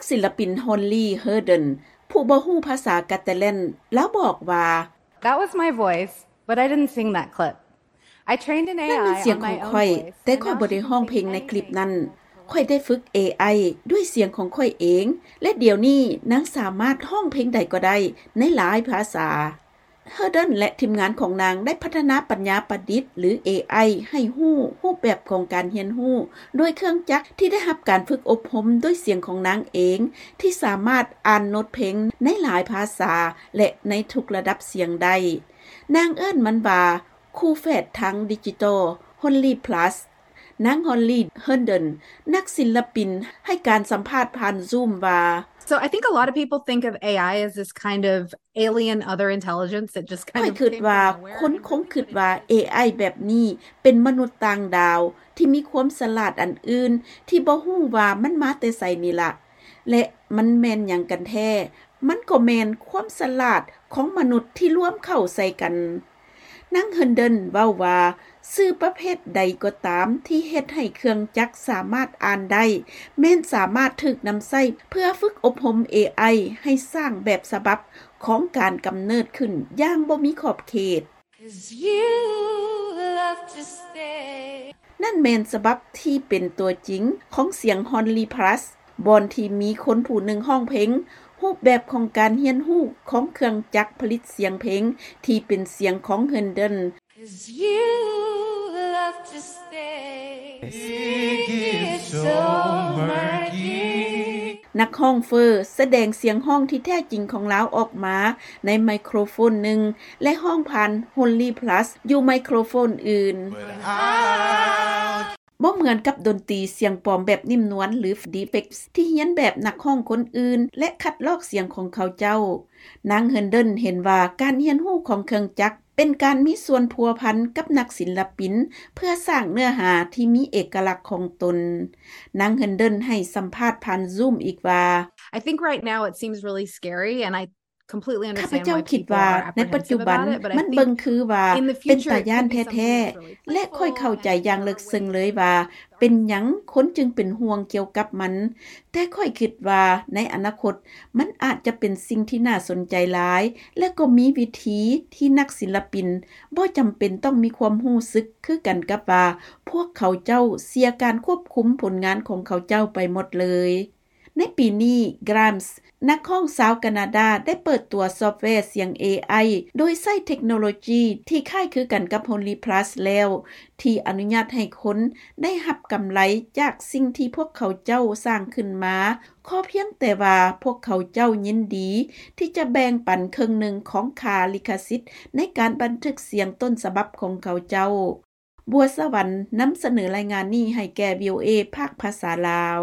ສິນລະປິນ Holly Herndon ຜູ້ບໍ່ຮູ້ພາສາກາຕາແລນ ລາວບອກວ່າ That was my voice, but I didn't sing that clip. I trained an ນັ້ນແມ່ນ AI ສຽງຂອງຂ້ອຍ, ແຕ່ຂ້ອຍບໍ່ໄດ້ຮ້ອງເພງໃນຄລິບນັ້ນ. ຂ້ອຍໄດ້ຝຶກ ເອໄອ ດ້ວຍສຽງຂອງຂ້ອຍເອງ ແລະ ດຽວນີ້ນາງສາມາດຮ້ອງເພງໃດກໍໄດ້ໃນຫຼາຍພາສາ. Herndon ແລະ ທີມງານຂອງນາງໄດ້ພັດທະນາປັນຍາປະດິດ ຫຼື ເອໄອ ໃຫ້ຮູ້ຮູບແບບຂອງການຮຽນຮູ້ ໂດຍເຄື່ອງຈັກທີ່ໄດ້ຮັບການຝຶກອົບຮົມດ້ວຍສຽງຂອງນາງເອງ ທີ່ສາມາດອ່ານໂນດເພງໃນຫຼາຍພາສາ ແລະ ໃນທຸກລະດັບສຽງໄດ້. ນາງເອີ້ນມັນວ່າ ຄູ່ແຝດທາງດິຈິຕອລ Holly Plus. ນາງ Holly Herndon ນັກສິນລະປິນ ໃຫ້ການສຳພາດຜ່ານ Zoom ວ່າ So I think a lot of people think of AI as this kind of alien other intelligence that just kind of came from nowhere. ຂ້ອຍຄິດວ່າຄົນຄົງຄິດວ່າ ເອໄອ ແບບນີ້ເປັນມະນຸດຕ່າງດາວທີ່ມີຄວາມສະຫຼາດອັນອື່ນ ທີ່ບໍ່ຮູ້ວ່າມັນມາແຕ່ໃສນີ້ລະ ແລະ ມັນແມ່ນຫຍັງກັນແທ້? ມັນກໍແມ່ນຄວາມສະຫຼາດຂອງມະນຸດທີ່ລວມເຂົ້າໃສ່ກັນ. ນາງ Herndon ເວົ້າວ່າ ສື່ປະເພດໃດກໍຕາມທີ່ເຮັດໃຫ້ເຄື່ອງຈັກສາມາດອ່ານໄດ້ ແມ່ນສາມາດຖືກນຳໃຊ້ເພື່ອຝຶກອົບຮົມ ເອໄອ ໃຫ້ສ້າງແບບສະບັບຂອງການກຳເນີດຂຶ້ນຢ່າງບໍ່ມີຂອບເຂດ. ນັ້ນແມ່ນສະບັບທີ່ເປັນຕົວຈິງຂອງສຽງ Holly Plus ບ່ອນທີ່ມີຄົນຜູ້ໜຶ່ງຮ້ອງເພງ, ຮູບແບບຂອງການຮຽນຮູ້ຂອງເຄື່ອງຈັກຜະລິດສຽງເພງທີ່ເປັນສຽງຂອງ Herndon. ນັກຮ້ອງເຟີສະແດງສຽງຮ້ອງທີ່ແທ້ຈິງຂອງລາວອອກມາໃນໄມໂຄຣໂຟນໜຶ່ງ ແລະ ຮ້ອງຜ່ານ Holly Plus ຢູ່ໄມໂຄຣໂຟນອື່ນ. ບໍ່ເໝືອນກັບດົນຕີສຽງປອມແບບນິ້ມນວນ ຫຼື Deepfake ທີ່ຮຽນແບບນັກຮ້ອງຄົນອື່ນ ແລະ ຄັດລອກສຽງຂອງເຂົາເຈົ້າ. ນາງ Herndon ເຫັນວ່າການຮຽນຮູ້ຂອງເຄື່ອງຈັກ ເປັນການມີສ່ວນພົວພັນກັບນັກສິນລະປິນ ເພື່ອສ້າງເນື້ອຫາທີ່ມີເອກະລັກຂອງຕົນ. ນາງ Herndon ໃຫ້ສຳພາດຜ່ານ Zoom ອີກວ່າ I think right now it seems really scary and I completely understand why people are apprehensive about it, but in the future it could be something that's really powerful. ຂ້າພະເຈົ້າຄິດວ່າໃນປັດຈຸບັນມັນເບິ່ງຄືວ່າເປັນຕາຢ້ານແທ້ໆ ແລະ ຂ້ອຍເຂົ້າໃຈຢ່າງເລິກເຊິ່ງເລີຍວ່າເປັນຫຍັງຄົນຈຶ່ງເປັນຫ່ວງກ່ຽວກັບມັນ. ແຕ່ຂ້ອຍຄິດວ່າໃນອະນາຄົດ ມັນອາດຈະເປັນສິ່ງທີ່ໜ້າສົນໃຈຫຼາຍ ແລະ ກໍມີວິທີທີ່ນັກສິນລະປິນບໍ່ຈຳເປັນຕ້ອງມີຄວາມຮູ້ສຶກຄືກັນກັບວ່າ ພວກເຂົາເຈົ້າເສຍການຄວບຄຸມຜົນງານຂອງເຂົາເຈົ້າໄປໝົດເລີຍ. ໃນປີນີ້ Grimes ນັກຮ້ອງຊາວການາດາ ໄດ້ເປີດຕົວຊອບແວສຽງ ເອໄອ ໂດຍໃຊ້ເທັກໂນໂລຈີທີ່ຄ້າຍຄືກັນກັບ Holly Plus ແລ້ວ ທີ່ອະນຸຍາດໃຫ້ຄົນໄດ້ຮັບກຳໄລຈາກສິ່ງທີ່ພວກເຂົາເຈົ້າສ້າງຂຶ້ນມາ ຂໍພຽງແຕ່ວ່າພວກເຂົາເຈົ້າຍິນດີທີ່ຈະແບ່ງປັນເຄິ່ງໜຶ່ງຂອງຄ່າລິຂະສິດໃນການບັນທຶກສຽງຕົ້ນສະບັບຂອງເຂົາເຈົ້າ. ບົວສະຫວັນ ນຳສະເໜີລາຍງານນີ້ໃຫ້ແກ່ VOA ພາກພາສາລາວ.